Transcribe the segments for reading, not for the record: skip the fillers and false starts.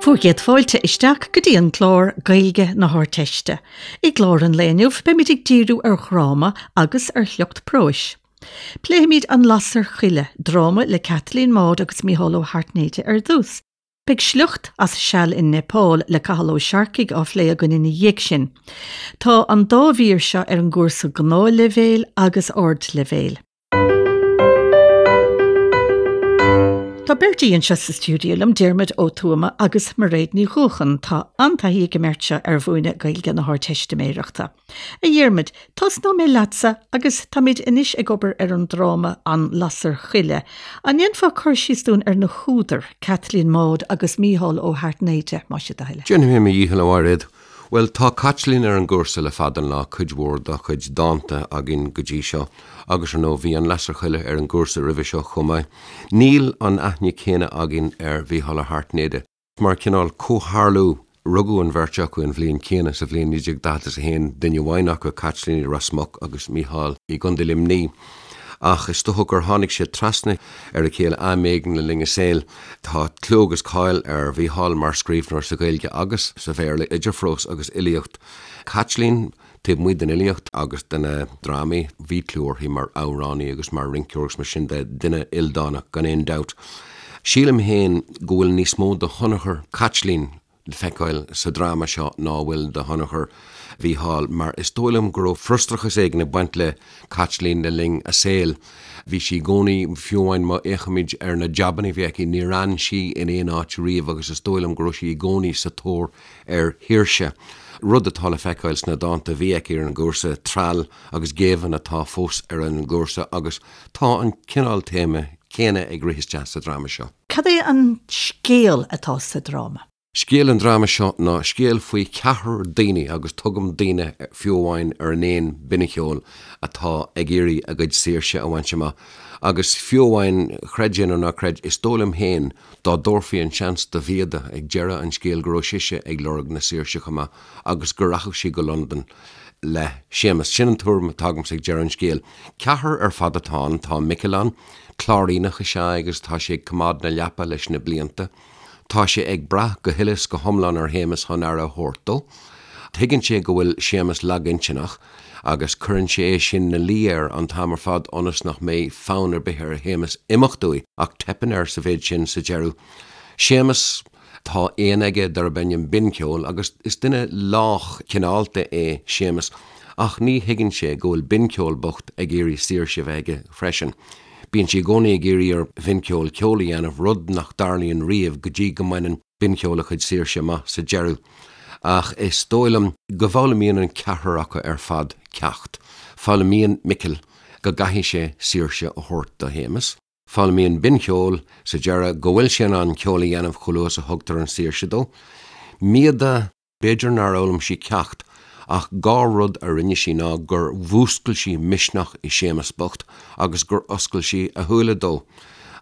Bhur gcéad fáilte isteach go dtí an clár Gaeilge na hArdteiste. I gclár an lae inniu beimid ag díriú ar dhráma agus ar shliocht próis. Pléifimid An Lasair Choille, dráma le Caitlín Maude agus Mícheál Ó hAirtnéide ar dtús. Beidh sliocht as Seal in Neipeal le Cathal Ó Searcaigh á phlé againn ina dhiaidh sin. Tá an dá mhír seo ar an gcúrsa Gnáthleibhéil agus Ardleibhéil. Tá beirt aoi anseo sa stiúideo liom, Diarmuid Ó Tuama agus Mairéad Ní Dhuacháin. Tá an-taithí ag an mbeirt seo ar mhúineadh Gaeilge na hArdteistiméireachta. A Dhiarmuid, tosnóidh mé leatsa agus táimid anois ag obair ar an dráma An Lasair Choille. An ndéanfá cur síos dúinn ar na húdair, Caitlín Maude agus Mícheál Ó hAirtnéide, más é do thoil? Déanfaidh mé mo dhícheall, a Mhairéad. Bhuel, tá Caitlín ar an gcúrsa le fada an lá, cuid mhór dá cuid dánta againn go dtí seo, agus ar ndóigh bhí An Lasair Choille ar an gcúrsa roimhe seo chomh maith. Níl an aithne céanna againn ar Mhícheál Ó hAirtnéide. Mar chineál comhtharlú, rugadh an bheirt acu an bhliain chéanna, sa bhliain 1941, duine amháin acu, Caitlín, i Ros Muc agus Mícheál i gContae Luimnigh. Ach is dócha gur tháinig siad trasna ar a chéile am éigin le linn a saoil. Tá clú agus cáil ar Mhícheál mar scríbhneoir sa Ghaeilge agus sa Bhéarla, idir phrós agus fhilíocht. Caitlín, taobh amuigh den fhilíocht agus de na drámaí, bhí clú uirthi mar amhránaí agus mar rinceoir agus mar sin de, duine ildánach gan aon dabht. Sílim féin go bhfuil níos mó de thionchar Chaitlín le feiceáil sa dráma seo ná a bhfuil de thionchar Mhícheáil, mar is dóigh liom go raibh frustrachas éigin ag baint le Caitlín le linn a saoil. Bhí sí i gcónaí, fiú amháin má fhéachaimid ar na jabanna a bhí aici, níor fhan sí in aon áit riamh agus is dóigh liom go raibh sí i gcónaí sa tóir ar shaoirse, rud atá le feiceáil sna dánta a bhí aici ar an gcúrsa, Treall agus Géibheann atá fós ar an gcúrsa agus tá an cineál téama céanna ag rith isteach sa dráma seo. Cad é an scéal atá sa dráma? Scéal an dráma seo ná scéal faoi cheathrar daoine, agus tugaim daoine fiú amháin ar an éan Binncheol, atá ag iarraidh a gcuid saoirse a bhaint amach. Agus fiú amháin, chreid é nó ná creid, is dóigh liom féin, dá dtabharfaí an seans do Mhíoda ag deireadh an scéil go raibh sise ag lorg na saoirse chomh maith agus go rachadh sí go Londain le Séamus. Sin an tuairim atá agamsa ag deireadh an scéil. Ceathrar ar fad atá ann, tá Micil ann, Cláiríneach is ea é agus tá sé ag coimeád na leapa leis na blianta. Tá sé ag brath go huile is go hiomlán ar Shéamus chun aire a thabhairt dó. Tuigeann sé go bhfuil Séamus lagintinneach agus cuireann sé é sin 'na luí air an t-am ar fad ionas nach mbeidh fonn ar bith ar Shéamus imeacht uaidh, ach teipeann air sa mhéid sin sa deireadh. Séamus. Tá éan aige darb ainm Binncheol agus is duine lách cineálta é Séamus ach ní thuigeann sé go bhfuil Binncheol bocht ag iarraidh saoirse a bheith aige freisin. Bíonn sé i gcónaí ag iarraidh ar Bhinncheol ceol a dhéanamh, rud nach dtarlaíonn riamh go dtí go mbaineann Binncheol a chuid saoirse amach sa deireadh. Ach is dóigh liom go bhfoghlaimíonn an ceathrar acu ar fad ceacht. Foghlaimíonn Micil go gcaithfidh sé saoirse a thabhairt do Shéamus. Foghlaimíonn Binncheol sa deireadh go bhfuil sé in ann ceol a dhéanamh chomh luath is a thugtar an saoirse dó. Míoda, b'fhéidir nár fhoghlaim sí ceacht, ach dhá rud a rinne sí ná gur mhúscail sí misneach i Séamus bocht agus gur oscail sí a shúile dó.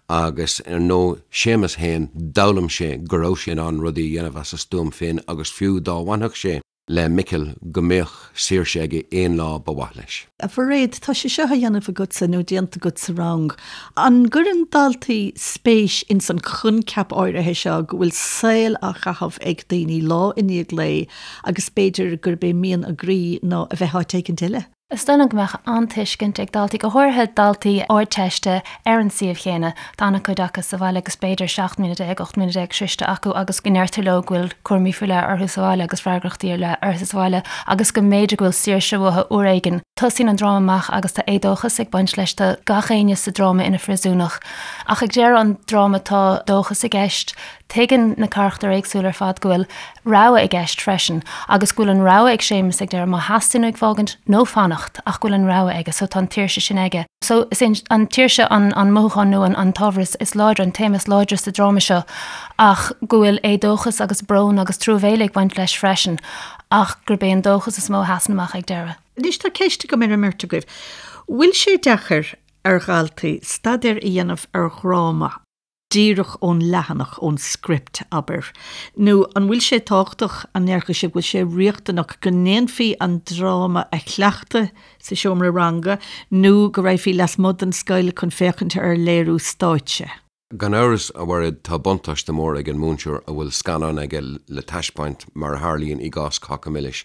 Agus ar ndóigh, Séamus féin, d'fhoghlaim sé go raibh sé in ann rudaí a dhéanamh as a stuaim féin agus fiú dá bhfanfadh sé le Micil go mbeadh saoirse aige aon lá ba mhaith leis. A Mhairéad, tá sé seo á dhéanamh agatsa nó déanta agat sa rang. An gcuireann daltaí spéis ins an choincheap áirithe seo go bhfuil saol á chaitheamh ag daoine lá i ndiaidh lae agus b'fhéidir gurb é mian a gcroí ná a bheith áit éicint eile? Is dóigh liom go mbeadh an-tuiscint ag daltaí, go háirithe daltaí Ardteiste ar an suíomh chéanna. Tá an-chuid acu sa bhaile agus b'fhéidir 17 mbliana, 18 mbliana sroichte acu agus go ndeirtear leo go bhfuil cúraimí faoi leith orthu sa bhaile agus freagrachtaí ar leith orthu sa bhaile agus go mb'fhéidir go bhfuil saoirse uathu uair éigin. Tosaíonn an dráma amach agus tá éadóchas ag baint leis, tá gach éinne sa dráma ina phríosúnach. Ach ag deireadh an dráma tá dóchas i gceist, Tuigeann na carachtair éagsúla ar fad go bhfuil rogha i gceist freisin agus go bhfuil an rogha ag Séamus ag deireadh má theastaíonn uaidh fágaint nó fanacht ach go bhfuil an rogha aige so tá an tsaoirse sin aige. So is é an tsaoirse an an mothúchán nó an an t-ábhar is is láidre, an téama is láidre sa dráma seo ach go bhfuil éadóchas agus brón agus truamhéile ag baint leis freisin ach gurb é an dóchas is mó a sheasann amach ag deireadh. Anois tá ceist agam ar an mbeirt agaibh. Bhfuil sé deacair ar dhaltaí staidéar a dhéanamh ar dhráma? díreach ón leathanach, ón script, abair? Nó an bhfuil sé tábhachtach, an ndéarfadh sibh go bhfuil sé riachtanach go ndéanfaí an dráma a chleachtadh sa seomra ranga nó go raghfaí lasmuigh den scoil chun féachaint ar léiriú stáitse? Gan amhras, a Mhairéad, tá buntáiste mór ag an múinteoir a bhfuil scannán aige le taispeáint, mar a tharlaíonn i gcás Cáca Milis.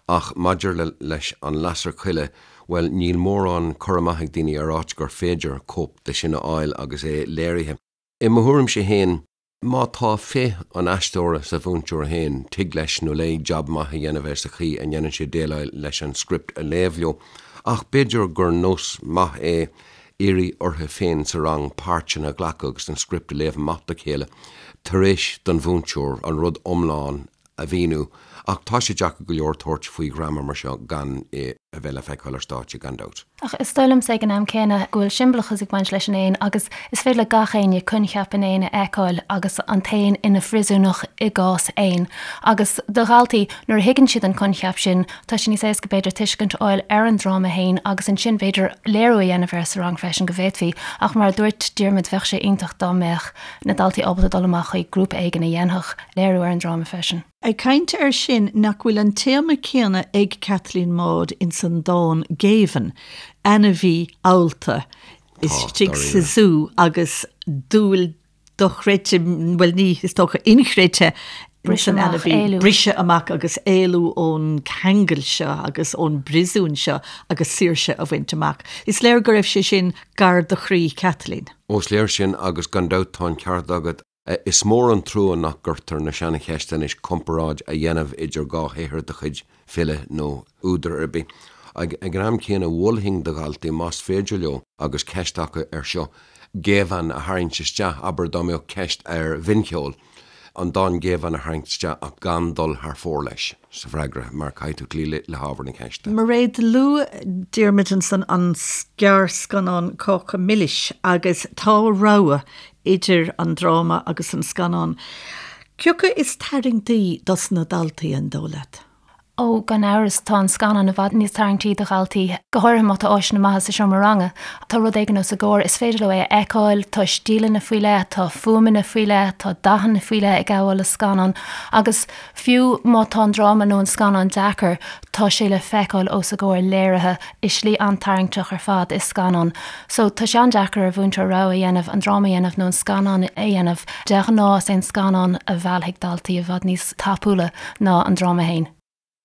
Ach maidir le leis An Lasair Choille, bhuel, níl mórán cur amach ag daoine ar áit gur féidir cóip de sin a fháil agus é léirithe. I mo thuairimse féin, má tá féith an aisteora sa mhúinteoir féin, tig leis nó léi jab maith a dhéanamh air sa chaoi a ndéanann sé déileáil leis an script a léamh leo. Ach b'fhéidir gur nós maith é iarraidh orthu féin sa rang páirteanna a ghlacadh agus an script a léamh amach dá chéile tar éis don mhúinteoir an rud iomlán a mhíniú, ach tá sé deacair go leor tabhairt faoi dhráma mar seo gan é a bheith le feiceáil ar stáitse, gan dabht. Ach is dóigh liomsa ag an am céanna go bhfuil siombalachas ag baint leis an éan agus is féidir le gach éinne coincheap an éin a fheiceáil agus an t-éan ina phríosúnach i gcás éin. Agus do dhaltaí, nuair a thuigeann siad an coincheap sin, tá sé níos éasca b'fhéidir tuiscint a fháil ar an dráma féin agus ansin b'fhéidir léiriú a dhéanamh air sa rang freisin go bhféadfaí. Ach mar a dúirt Diarmuid bheadh sé iontach dá mbeadh na daltaí ábalta dul amach chuig grúpa éigin a dhéanfadh léiriú ar an dráma freisin. Ag caint air sin, nach bhfuil an téama céanna ag Caitlín Maude ins an dán Géibheann, ainmhí allta istigh sa zú agus dúil dochreidte, bhuel ní, is dócha, inchreidte ins an ainmhí, briseadh amach agus éalú ón ceangal seo agus ón bpríosún seo agus saoirse a bhaint amach. Is léir go raibh sé sin gar do chroí Chaitlín. Ó, is léir sin agus gan dabht tá an ceart agat. Is mór an trua nach gcuirtear na seancheisteanna anois comparáid a dhéanamh idir dhá shaothar de chuid file nó údair ar bith. Ag an am céanna, mholfainn do dhaltaí, más féidir leo agus ceist acu air seo, Géibheann a tharraingt isteach, abair dá mbeadh ceist ar bhincheol, an dán Géibheann a tharraingt isteach ach gan dul thar fóir leis sa bhfreagra mar caithfidh tú cloí le hábhar na ceiste. Mairéad, luaigh Diarmuid ansan an gearrscannán Cáca Milis agus tá rogha idir an dráma agus an scannán. Cioca is tarraingtí dos na daltaí, an dóigh leat? Ó, gan amhras, tá an scannán i bhfad níos tarraingtí do dhaltaí, go háirithe má tá áiseanna maithe sa seomra ranga. Tá rud éigin os a gcomhair, is féidir leo é a fheiceáil, tá stíleanna faoi leith, tá fuaimeanna faoi leith, tá dathanna faoi leith ag gabháil le scannán agus fiú má tá an dráma nó an scannán deacair, tá sé le feiceáil os a gcomhair léirithe i slí an-tarraingteach ar fad i scannán. So, tá sé an-deacair ar mhúinteoir rogha a dhéanamh, an dráma a dhéanamh nó an scannán a dhéanamh. De ghnáth, is é an scannán a mheallfaidh daltaí i bhfad níos tapúla ná an dráma féin.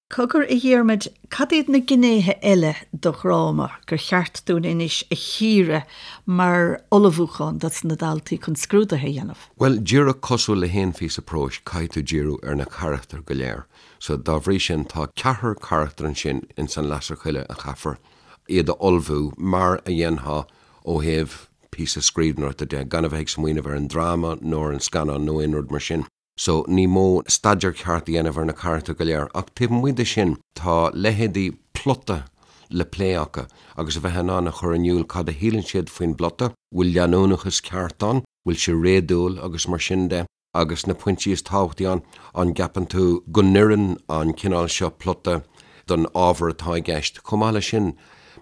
Cogar, a Dhiarmaid, cad iad na gnéithe eile de dhráma gur cheart dúinn anois a chíoradh mar ullmhúchán dos na daltaí chun scrúduithe a dhéanamh? Bhuel, díreach cosúil le haon phíosa próis, caithfidh tú díriú ar na carachtair go léir. So, dá bhrí sin, tá ceathrar carachtar ansin ins An Lasair Choille a chaithfear iad a ullmhú mar a dhéanfá ó thaobh píosa scríbhneoireachta de, gan a bheith ag smaoineamh ar an dráma nó ar an scannán nó aon rud mar sin. So, ní mór staidéar ceart a dhéanamh ar na carachtair go léir. Ach taobh amuigh de sin, tá leithéidí plota le plé acu agus a bheith in ann a chur in iúl cad a shíleann siad faoin bplota, bhfuil leanúnachas ceart ann, bhfuil sé réadúil agus mar sin de. Agus na pointí is tábhachtaí ann, an gceapann tú go n-oireann an cineál seo plota don ábhar atá i gceist? Chomh maith leis sin,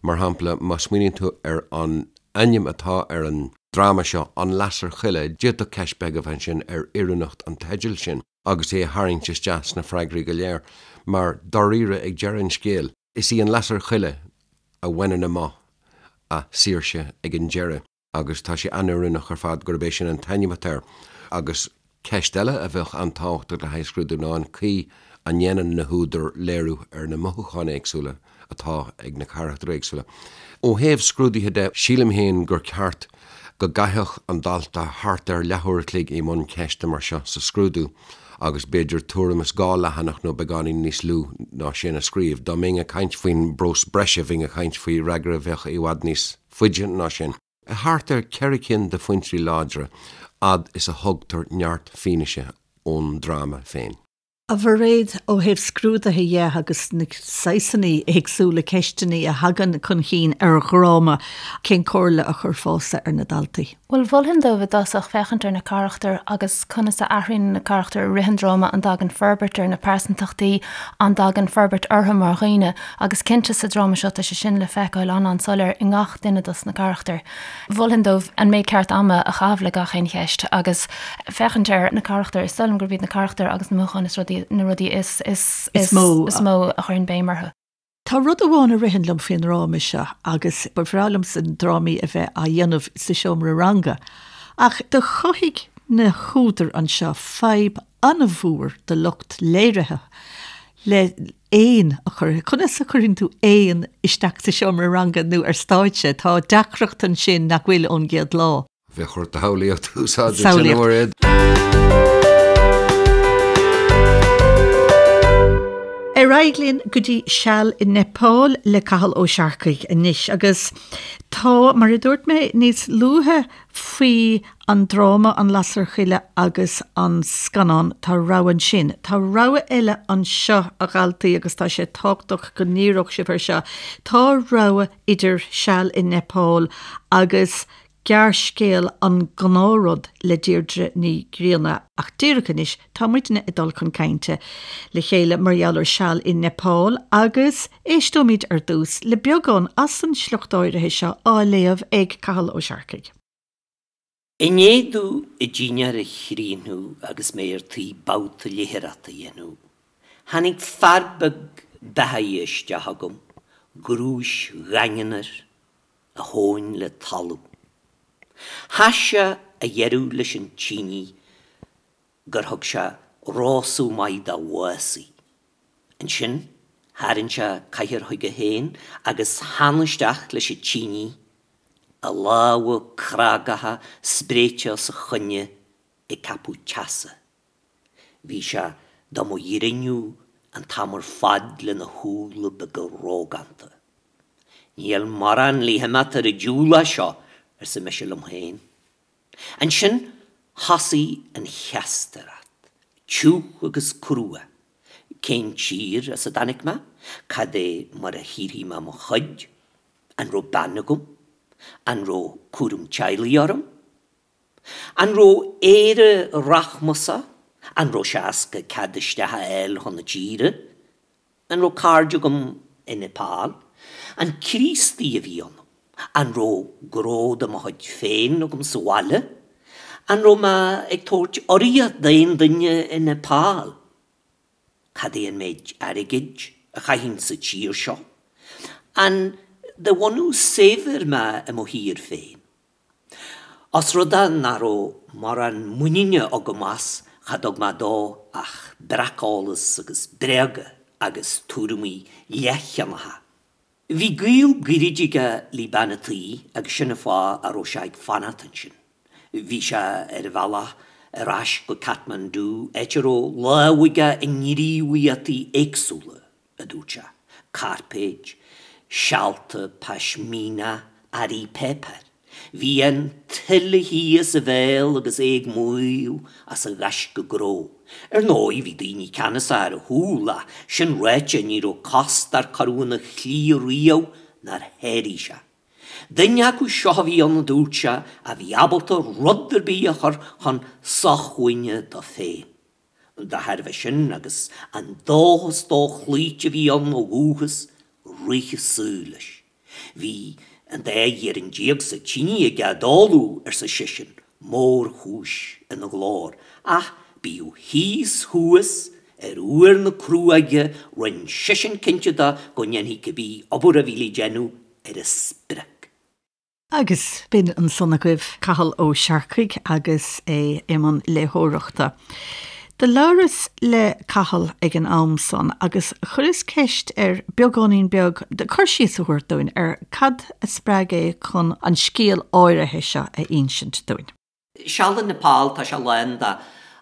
mar shampla, má smaoiníonn tú ar an ainm atá ar an dráma seo, An Lasair Choille, d'fhéadfadh ceist bheag a bheith ansin ar oiriúnacht an teidil sin agus é a tharraingt isteach sna freagraí go léir, mar dáiríre, ag deireadh an scéil, is í an lasair choille a bhaineann amach a saoirse ag an deireadh. agus tá sé an-oiriúnach ar fad gurb é sin an t-ainm atá air. Agus ceist eile a bheadh an-tábhachtach le haghaidh scrúdú ná an chaoi a ndéanann na húdair léiriú ar na mothúcháin éagsúla atá ag na carachtair éagsúla. Ó thaobh scrúduithe de, sílim féin gur ceart go gcaithfeadh an dalta thart ar leathuair a chloig i mbun ceiste mar seo sa scrúdú agus b'fhéidir tuairim is 2 leathanach nó beagáinín níos lú ná sin a scríobh. Dá mbeinn ag caint faoin bprós breise bheinn ag caint faoi fhreagra a bheadh i bhfad níos faide ná sin. Thart ar cheithre cinn de phointí láidre, fhad is a thugtar neart fianaise ón dráma féin. A Mhairéad, ó thaobh scrúduithe dhe agus na saghsanna éagsúla ceisteanna a thagann chun chinn ar dhráma, cén comhairle a chuirfeása ar na daltaí? Bhuel, mholfainn dóibh i dtosach féachaint ar na carachtair agus conas a athraíonn na carachtair i rith an dráma, an dtagann forbairt ar na pearsantachtaí, an dtagann forbairt orthu mar dhaoine. Agus cinnte sa dráma seo tá sé sin le feiceáil an-an-soiléir i ngach duine dos na carachtair. Mholfainn dóibh an méid ceart ama a chaitheamh le gach aon cheist agus féachaint ar na carachtair. Is dóigh liom gurb iad na carachtair agus na mothúcháin is rudaí, na rudaí is, is, is mó is mó a chuirfinn béim orthu. Tá rud amháin a ritheann liom faoin ndráma seo agus ba bhreá liomsa drámaí a bheith á dhéanamh sa seomra ranga. Ach do chothaigh na húdair anseo fadhb an-mhór do lucht léirithe le éan a chur, conas a chuireann tú éan isteach sa seomra ranga nó ar stáitse? Tá deacracht ansin nach bhfuil ón gcéad lá. Bheadh ort do shamhlaíocht a úsáid ansin, a Mhairéad. Ar aghaidh linn go dtí Seal i Neipeal le Cathal Ó Searcaigh anois agus tá, mar a dúirt mé níos luaithe faoi an dráma An Lasair Choille agus an scannán, tá rogha ansin. Tá rogha eile anseo, a dhaltaí, agus tá sé tábhachtach go ndíreodh sibh air seo. Tá rogha idir Seal i Neipeal agus gearrscéal An Gnáthrud le Deirdre Ní Ghrianna. Ach díreach anois, tá muidne ag dul chun cainte le chéile mar gheall ar Seal i Neipeal agus éisteoimid ar dtús le beagán as an sliocht áirithe seo á léamh ag Cathal Ó Searcaigh. I ndiaidh domh an dinnéar a chríochnú agus mé ar tí babhta léitheoireachta a dhéanamh, tháinig fear beag beathaithe isteach chugam, grúis dhaingean air, a thóin le talamh. Chas sé a dheireadh leis an tine gur thug sé rósadh maith dá mhásaí. Ansin tharraing sé cathaoir chuige féin agus theann isteach leis an tine a lámha crágacha spréite os a choinne ag ceapadh teasa. Bhí sé do mo ghrinniú an t-am ar fad lena shúile beaga rógánta. Níl morán le himeacht ar an diabhal as seo, arsa mise liom féin. Ansin thosaigh an cheastaireacht, tiugh agus crua. Cén tír as a dtáinig mé? Cad é mar a shaothraigh mé mo chuid? An raibh bean agam? An raibh cúram teaghlaigh orm? An raibh Éire rachmasach? An raibh sé éasca cead isteach a fháil chun na tíre? An raibh cairde agam i Neipeal? An Críostaí a bhí ionam? An raibh gnó de mo chuid féin agam sa bhaile? An raibh mé ag tabhairt urraíocht d'aon duine i Neipeal? Cad é an méid airgid a chaithfinn sa tír seo? An de bhunús saibhir mé i mo thír féin? Os rud é nach raibh mórán muiníne agam as, cha dtug mé dó ach breaceolas agus bréaga agus tuairimí leathcheannacha. Bhí gaol gairid aige le bean a' tí agus sin an fáth a raibh sé ag fanacht ansin. Bhí sé ar a bhealach ar ais go Kathmandu, áit a raibh lámh aige i ngníomhaíochtaí éagsúla, a dúirt sé, cairpéid, sealta pashmina, earraí páipéir. Bhí an tuile thíos a bhéal agus é ag maíomh as a ghaisce gnó. Ar ndóigh, bhí daoine ceannasach ar a chúl ach sin ráite ní raibh cos dár cuireadh ina shlí riamh nár sháraigh sé. Duine acu seo a bhí ann a dúirt sé a bhí ábalta rud ar bith a chur chun sócmhainne dó féin. Dá thairbhe sin agus an dóchas dóchloíte a bhí ann ó dhúchas, rith an saol leis. Bhí an dá ghiarann déag sa tine aige i dtólamh, arsa seisean, mórchúis ina ghlór, ach bíodh thíos thuas ar uair na cruóige rinne seisean cinnte de go ndéanfaí cibé obair a bhí le déanamh ar an sprioc. Agus b'in ansan agaibh Cathal Ó Searcaigh agus é i mbun léitheoireachta. Do labhras le Cathal ag an am san agus chuireas ceist air beagáinín beag cur síos a thabhairt dúinn ar cad a spreag é chun an scéal áirithe seo a insint dúinn. Seal i Nepal, tá sé lán de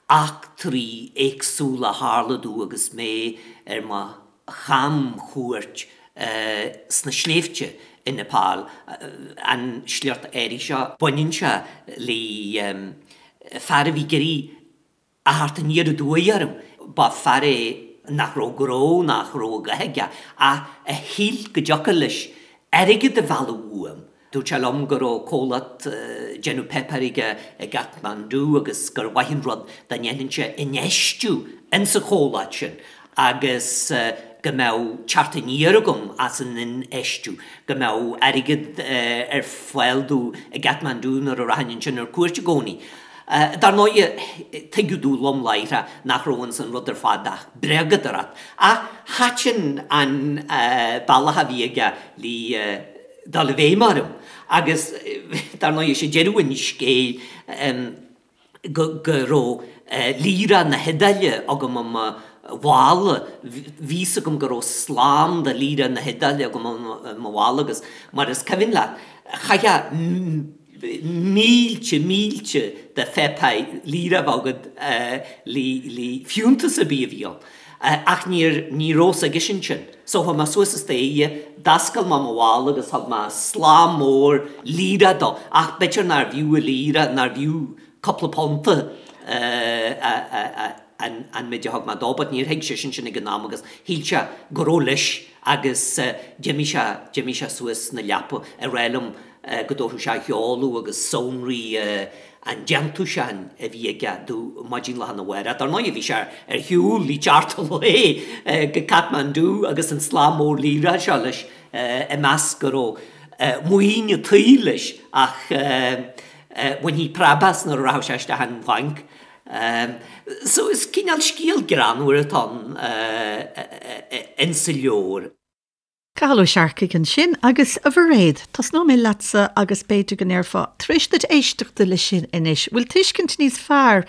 eachtraí éagsúla a tharla domh agus mé ar mo chamchuairt sna sléibhte i Nepal. An sliocht áirithe seo, baineann sé le fear a bhí ag iarraidh a theacht aniar aduaidh orm. Ba fear é nach raibh gnó, nach raibh a dhath aige, ach a shíl go dtiocfadh leis airgead a mhealladh uaim. Dúirt sé liom go raibh comhlacht déanamh páipéir aige i gCathmandú agus gur mhaith an rud dá ndéanfainnse infheistiú insa chomhlacht sin agus go mbeadh teacht aniar agam as an infheistiú, go mbeadh airgead ar fáil domh i gCathmandú nuair a rachainn ansin ar cuairt i gcónaí. Dar ndóighe, tuigeadh domh lom láithreach nach raibh ins an rud ar fad ach bréagadóireacht, ach thaitin an bealach a bhí aige le dul i bhfeidhm orm. Agus dar ndóigh, is é deireadh an scéil go raibh lira na hIodáile agam i mo mhála, bhí fhios agam go raibh slám de lira na hIodáile agam i mo mhála agus mar is cuimhin leat, chaithfeá mílte, mílte de pháipéir lira a bheith agat le fiúntas ar bith a bhí ann. Ach níor, ní raibh fhios aigesean sin. So chuaigh mé suas an staighre, d'oscail mé mo mhála agus thug mé slám mór lira dó. Ach b'fhéidir nárbh fhiú an lira, nárbh fhiú cúpla punta an méid a thug mé dó, but níor thuig seisean sin ag an am agus shíl sé go raibh leis agus d'imigh sé, d'imigh sé suas 'na leapa ag rá liom go dtabharfadh sé a sheoladh agus sonraí an déantúsáin a bhí aige domh maidin lá arna mhárach. Dar ndóigh bhí sé ar shiúl le teacht an lae go Kathmandu agus an slám mór lira seo leis ag meas go raibh maoin an tsaoil leis ach bhainfí preab as nuair a rachadh sé isteach an bhanc. So is cineál scéal greannmhar atá ann insa leabhar. Cathal Ó Searcaigh ansin agus a Mhairéad, tosnóidh mé leatsa agus b'fhéidir go ndéarfá, tar éis duit éisteachta leis sin anois, bhfuil tuiscint níos fearr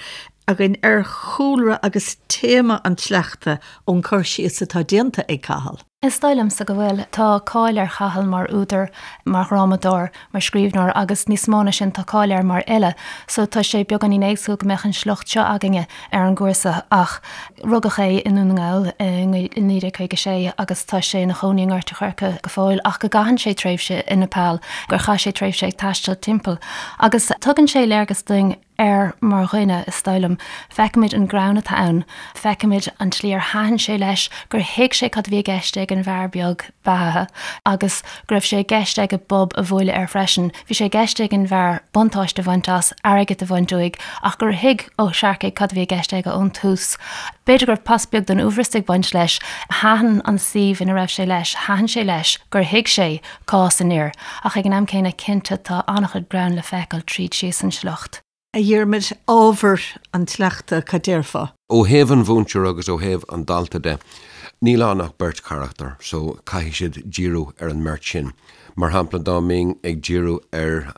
againn ar chúlra agus téama an tsleachta ón cur síos atá déanta ag Cathal? Is dóigh liomsa go bhfuil. Tá cáil ar Chathal mar údar, mar dhrámadóir, mar scríbhneoir agus níos mó ná sin tá cáil air mar fhile. So tá sé beagáinín éagsúil go mbeadh an sliocht seo againne ar an gcúrsa ach rugadh é i nDún na nGall i 1956 agus tá sé ina chónaí i nGort a' Choirce go fóill ach go gcaitheann sé tréimhse i Nepal, gur chaith sé tréimhse ag taisteal timpeall. Agus tugann sé léargas dúinn air mar dhuine, is dóigh liom. Feicimid an greann atá ann, feicimid an tslí ar thaitin sé leis, gur thuig sé cad a bhí i gceist ag an bhfear beag beathaithe agus go raibh sé i gceist aige bob a bhualadh air freisin. Bhí sé i gceist ag an bhfear buntáiste a bhaint as, airgead a bhaint uaidh, ach gur thuig Ó Searcaigh cad a bhí i gceist aige ón tús. B'fhéidir go raibh pas beag den uaibhreas ag baint leis. Thaitin an suíomh ina raibh sé leis, thaitin sé leis gur thuig sé cás an fhir, ach ag an am céanna, cinnte, tá an-chuid greann le feiceáil tríd síos an sliocht. A Dhiarmaid, ábhar an tsleachta, cad déarfá? Ó thaobh an mhúinteora agus ó thaobh an dalta de, níl ann ach beirt charachtar, so caithfidh siad díriú ar an mbeirt sin. Mar shampla, dá mbeinn ag díriú ar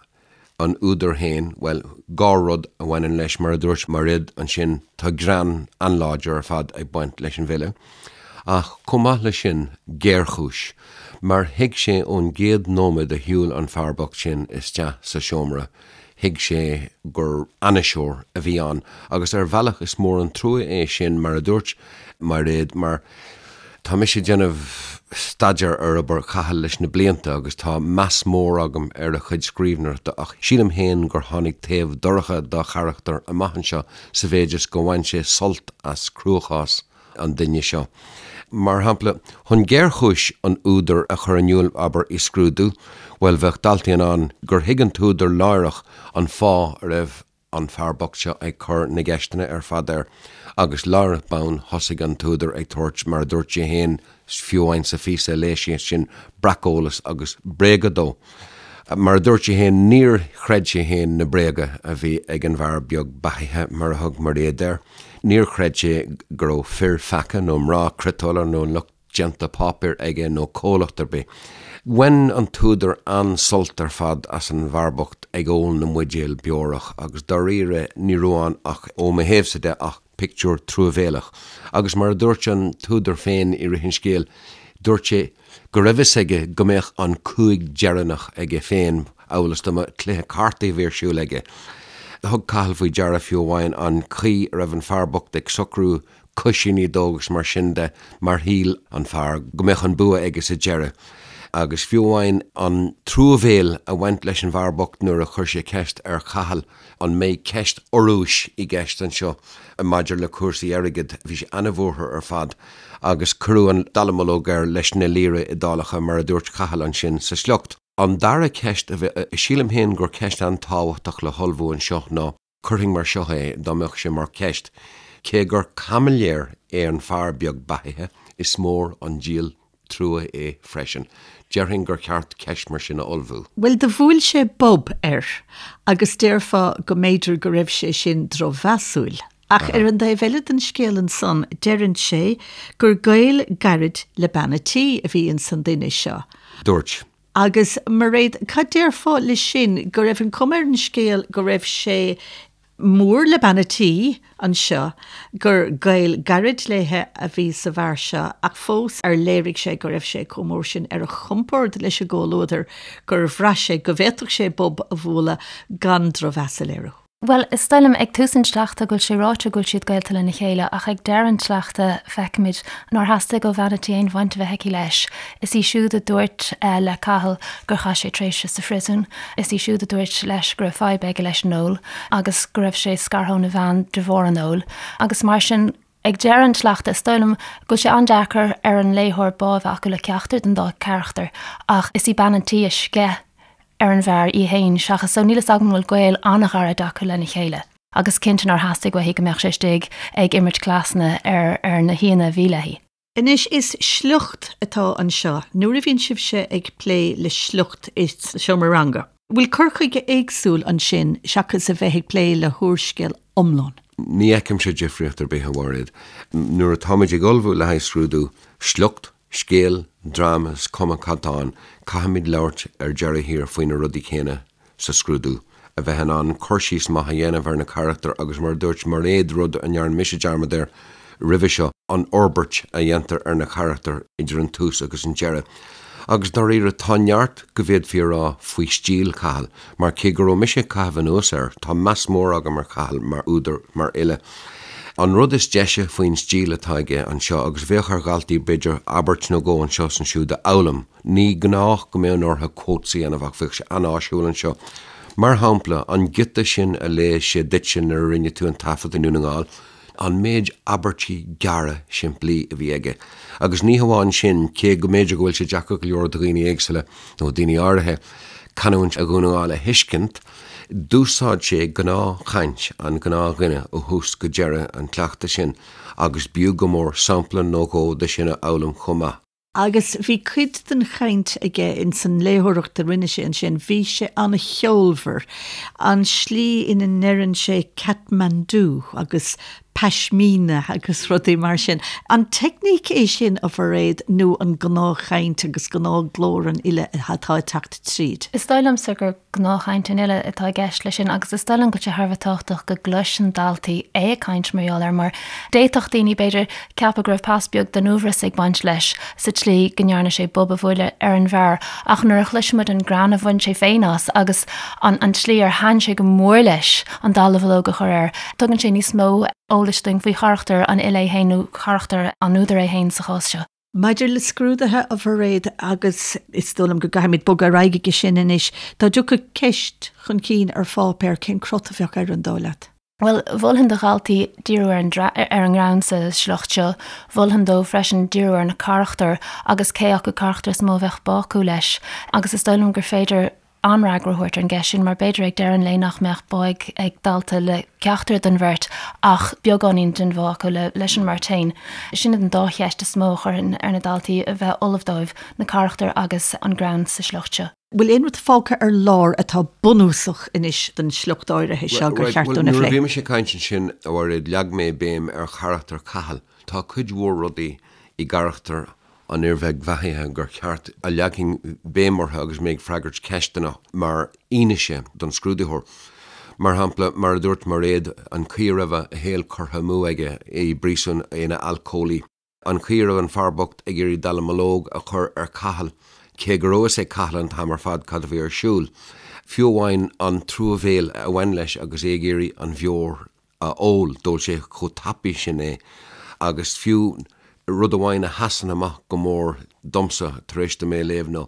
an údar féin, bhuel, dhá rud a bhaineann leis, mar a dúirt Mairéad ansin, tá greann an-láidir ar fad ag baint leis an bhfile, ach chomh maith leis sin, géarchúis, mar thuig sé ón gcéad nóiméad a shiúil an fear bocht sin isteach sa seomra, thuig sé gur ainniseoir a bhí ann, agus ar bhealach is mór an trua é sin, mar a dúirt Mairéad, mar tá mise ag déanamh staidéar ar obair Chathail leis na blianta agus tá meas mór agam ar a chuid scríbhneoireachta ach sílim féin gur tháinig taobh dorcha dá charachtar amach anseo sa mhéid is go bhain sé sult as cruachás an duine seo. Mar shampla, chun géarchúis an údair a chur in iúl, abair, i scrúdú, bhuel, bheadh daltaí in ann gur thuig an t-údar láithreach an fáth a raibh an fear bocht seo ag cur na gceisteanna ar fad air agus láithreach bonn thosaigh an t-údar ag tabhairt, mar a dúirt sé féin, fiú amháin sa phíosa a léigh sé sin, breaceolas agus bréaga dó. Mar a dúirt sé féin, níor chreid sé féin na bréaga a bhí ag an bhfear beag beathaithe, mar a thug Mairéad air. Níor chreid sé go raibh fir pheaca nó mná criotála nó lucht déanta páipéir aige nó comhlacht ar bith. Bhain an t-údar an-sult ar fad as an bhfear bocht ag ól na mbuidéal beorach agus dáiríre ní raibh ann ach, ó mo thaobhsa de, ach pictiúr truamhéalach. Agus mar a dúirt an t-údar féin i rith an scéil, dúirt sé go raibh fhios aige go mbeadh an cúig deireanach aige féin, amhail is dá mba cluiche cártaí a bhí ar siúl aige. Thug Cathal faoi deara fiú amháin an chaoi a raibh an fear bocht ag socrú coisíní dó agus mar sin de mar shíl an fear go mbeadh an bua aige sa deireadh. Agus fiú amháin an truamhéil a bhaint leis an bhfear bocht nuair a chuir sé ceist ar Chathal an mbeidh ceist urrúis i gceist anseo maidir le cúrsaí airgid, bhí sé ana-bhuartha ar fad agus cuireadh an dallamullóg air leis na lira Iodálacha mar a dúirt Cathal ansin sa sliocht. An dara ceist a bhí, sílim féin gur ceist an-tábhachtach le hullmhú anseo ná. Cuirfinn mar seo é, dá mbeadh sé mar cheist, cé gur caimiléir é an fear beag beathaithe, is mór an díol trua é freisin. Déarfainn gur cheart ceist mar sin a ullmhú. Bhuel, do bhuail sé bob air, agus déarfá go mb'fhéidir go raibh sé sin drochmheasúil. Ach ar an dtaobh eile den scéal ansan, deireann sé gur gaol gairid le bean a' tí a bhí ins an duine seo. Dúirt. Agus Mairéad, cad déarfá le sin, go raibh an cuma ar an scéal go raibh sé mór le bean a' tí anseo, gur gaol gairid léithe a bhí sa bhfear seo ach fós ar léirigh sé go raibh sé chomh mór sin ar a chompord leis an gcomhluadar gur bhraith sé go bhféadfadh sé bob a bhualadh gan drochmheas a léiriú. Bhuel, is dóigh liom ag tús an tsleachta go bhfuil sé ráite go bhfuil siad gaolta lena chéile ach ag deireadh an tsleachta feicimid nár theastaigh ó bhean a' tí aon bhaint a bheith aici leis. Is í siúd a dúirt le Cathal gur chaith sé tréimhse sa phriosún. Is í siúd a dúirt leis go raibh fadhb aige leis an ól agus go raibh sé scartha óna bhean de bharr an óil. Agus mar sin, ag deireadh an tsleachta, is dóigh liom go bhfuil sé an-deacair ar an léitheoir bá a bheith acu le ceachtar den dá charachtar ach is í bean an tí a sceith ar an bhfear í féin seachas so níl fhios agam an bhfuil gaol an-ghairid acu lena chéile. Agus cinnte nár theastaigh uaithi go mbeadh sé istigh ag imirt cleasanna ar ar na haíonna a bhí léi. Anois, is sliocht atá anseo. Nuair a bhíonn sibhse ag plé le sliocht i seomra ranga, bhfuil cur chuige éagsúil ansin seachas a bheith ag plé le húrscéal iomlán? Ní fheicimse difríocht ar bith, a Mhairéad. Nuair atáimid ag ullmhú le haghaidh scrúdú, sliocht, scéal, dráma, is cuma cad tá ann, caithfimid labhairt ar deireadh thiar faoi na rudaí céanna sa scrúdú, a bheith in ann cur síos maith a dhéanamh ar na carachtair agus mar a dúirt Mairéad, rud a ndearna mise dearmad air roimhe seo, an fhorbairt a dhéantar ar na carachtair idir an tús agus an deireadh. Agus dáiríre, tá neart go bhféadfaí a rá faoi stíl Chathail, mar cé go raibh mise ag caitheamh anuas air, tá meas mór agam ar Chathal mar údar, mar fhile. An rud is deise faoin stíl atá aige anseo, agus bheadh ar dhaltaí b'fhéidir abairt nó dhó anseo is ansiúd a fhoghlaim, Ní gnách go mbeadh orthu quotes a dhéanamh ach bheadh sé an-áisiúil anseo. Mar shampla, an giota sin a léigh sé duitse nuair a rinne tú an taifead i nDún na nGall, an méid abairtí gearra simplí a bhí aige. Agus ní hamháin sin, cé go mb'fhéidir go bhfuil sé deacair go leor do dhaoine éagsúla, nó daoine áirithe, canúint Dhún na nGall a thuiscint, d'úsáid sé gnáthchaint an ghnáthdhuine ó thús go deireadh an tsleachta sin agus b'fhiú go mór sampla nó dhó de sin a fhoghlaim chomh maith. Agus bhí cuid den chaint aige ins an léitheoireacht a rinne sé ansin, bhí sé an-cheolmhar, an slí ina ndeireann sé Kathmandu agus pashmina agus rudaí mar sin. An teicníc é sin, a Mhairéad, nó an gnáthchaint agus gnáthghlór an fhile atá ag teacht tríd? Is dóigh liomsa gur gnáthchaint an fhile atá i gceist leis sin agus is dóigh liom go bhfuil sé thar a bheith tábhachtach go gcloiseann daltaí é ag caint mar gheall air mar d'fhéadfadh daoine, b'fhéidir, ceapadh go raibh pas beag den uaibhreas ag baint leis sa tslí go ndearna sé bob a bhualadh ar an bhfear ach nuair a chloiseann muid an greann a bhain sé féin as agus an an tslí ar thaitin sé go mór leis an dallamullóg a chur air, tugann sé níos mó eolais dúinn faoi charachtar an fhile é féin nó charachtar an údair é féin sa chás seo. Maidir le scrúduithe, a Mhairéad, agus is dóigh liom go gcaithfimid bogadar aghaidh aige sin anois, dá dtiocfadh ceist chun cinn ar pháipéar, cén crot a bheadh air, an dóigh leat? Bhuel, mholfainn do dhaltaí díriú ar an ar an ngreann sa sliocht seo. Mholfainn dóibh freisin díriú ar na carachtair agus cé acu carachtar is mó a bheadh bá acu leis. Agus is dóigh liom gur féidir an-fhreagra a thabhairt ar an gceist sin mar b'fhéidir ag deireadh an lae nach mbeadh bá ag ag dalta le ceachtar den bheirt ach beagáinín den bhá acu le leis an mbeirt féin. Sin iad an dá cheist is mó a chuirfinn ar na daltaí a bheith ullamh dóibh, na carachtair agus an greann sa sliocht seo. Bhfuil aon rud fágtha ar lár atá bunúsach anois don sliocht áirithe seo gur cheart dúinn a phlé? Nuair a bhí mise ag caint ansin, a Mhairéad, leag mé béim ar charachtar Chathail. Tá cuid mhór rudaí i gcarachtar an fhir bhig bheathaithe gur cheart a leagfainn béim orthu agus mé ag freagairt ceisteanna mar fhianaise don scrúdaitheoir. Mar shampla, mar a dúirt Mairéad, an chaoi a raibh a shaol curtha amú aige i bpríosún, ina alcólaí. An chaoi a raibh an fear bocht ag iarraidh dallamullóg a chur ar Cathal, cé go raibh fhios ag Cathal an t-am ar fad cad a bhí ar siúl. Fiú amháin an truamhéil a bhain leis agus é ag iarraidh an bheoir a ól, d'ól sé chomh tapaidh sin é agus fiú rud amháin a sheasann amach go mór domsa tar éis dom é a léamh ná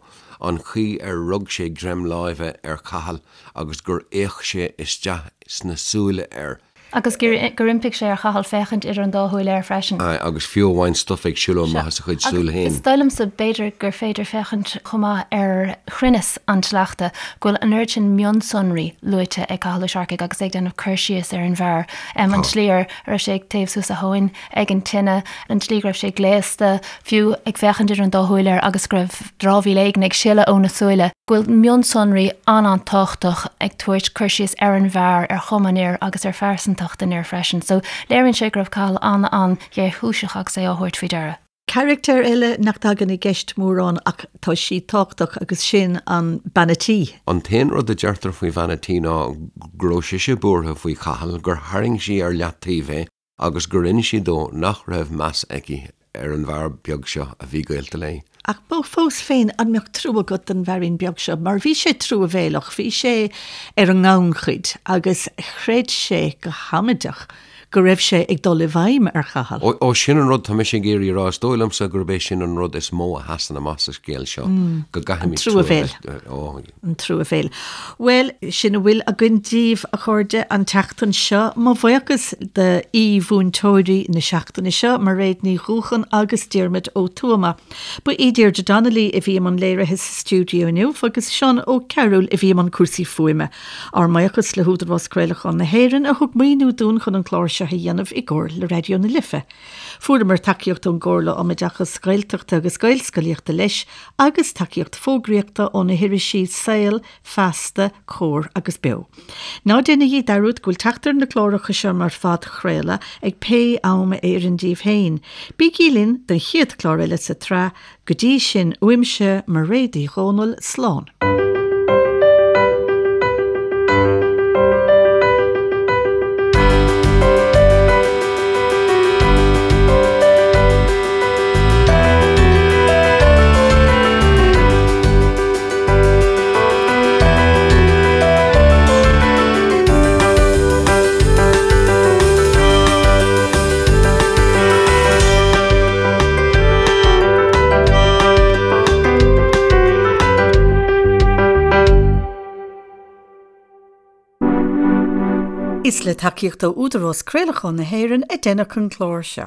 an chaoi ar rug sé greim láimhe ar Chathal agus gur fhéach sé isteach sna súile air. Agus gur iompaigh sé ar Chathal féachaint idir an dá shúil air freisin. Aye, agus fiú amháin stuif ag siúl amach as a chuid súl féin. Is dóigh liomsa, b'fhéidir, gur féidir féachaint chomh maith ar chruinneas an tsleachta, go bhfuil an oiread sin mionsonraí luaite ag Cathal Ó Searcaigh agus é ag déanamh cur síos ar an bhfear, an tslí ar raibh sé ag téamh suas a thóin ag an tine, an tslí go raibh sé gléasta, fiú ag féachaint idir an dá shúil air agus go raibh dramhaíl éigin ag sileadh óna súile, go bhfuil mionsonraí an-an-tábhachtach ag tabhairt cur síos ar an bhfear, ar chuma an fhir agus ar phearsantacht an fhir freisin. So léiríonn sé go raibh Cathal an-an-ghéarchúiseach agus é á thabhairt faoi deara. Carachtar eile nach dtagann i gceist mórán ach tá sí tábhachtach agus sin an bean a' tí. An t-aon rud a deirtear faoi bhean a' tí ná go raibh sise buartha faoi Chathal, gur tharraing sí ar leataobh é agus gur inis sí dó nach raibh meas aici ar an bhfear beag seo a bhí gaolta léi. Ach fós féin, an mbeadh trua agat don bhfeairín beag seo? Mar bhí sé truamhéalach, bhí sé ar an ngannchuid agus chreid sé go hamaideach go raibh sé ag dul i bhfeidhm ar Chathal. Ó, ó, sin an rud tá mise ag iarraidh a rá, is dóigh liomsa gurb é sin an rud is mó a sheasann amach sa scéal seo, go gcaithfimid trua a bheith, ó. An truamhéil. Bhuel, sin a bhfuil againn daoibh, a chairde, an tseachtain seo. Mo bhuíochas d'aoi-mhúinteoirí na seachtaine seo, Mairéad Ní Dhúcháin agus Diarmuid Ó Tuama. Ba í Deirdre Donnelly a bhí i mbun léirithe sa stiúideo inniu agus Seán Ó Cearúil a bhí i mbun cúrsaí fuaime. Ár mbuíochas le hÚdarás Craolacháin na hÉireann a thug maoiniú dúinn chun an clár seo a dhéanamh i gcomhar le Raidió na Life. Fuaireamar tacaíocht ón gComhairle um Oideachas Gaeltachta agus Gaelscolaíochta leis agus tacaíocht fógraíochta ó na hirisí Saol, Feasta, Comhar agus Beo. Ná déanaigí dearúd go bhfuil teacht ar na cláracha seo mar phodchraoladh ag pé am a oireann daoibh féin. Bígí linn don chéad chlár eile sa tsraith Go dtí sin, uaimse, Mairéad Uí Dhomhnaill, slán. Is le tacaíocht ó Údarás Craolacháin na hÉireann a deineadh an clár seo.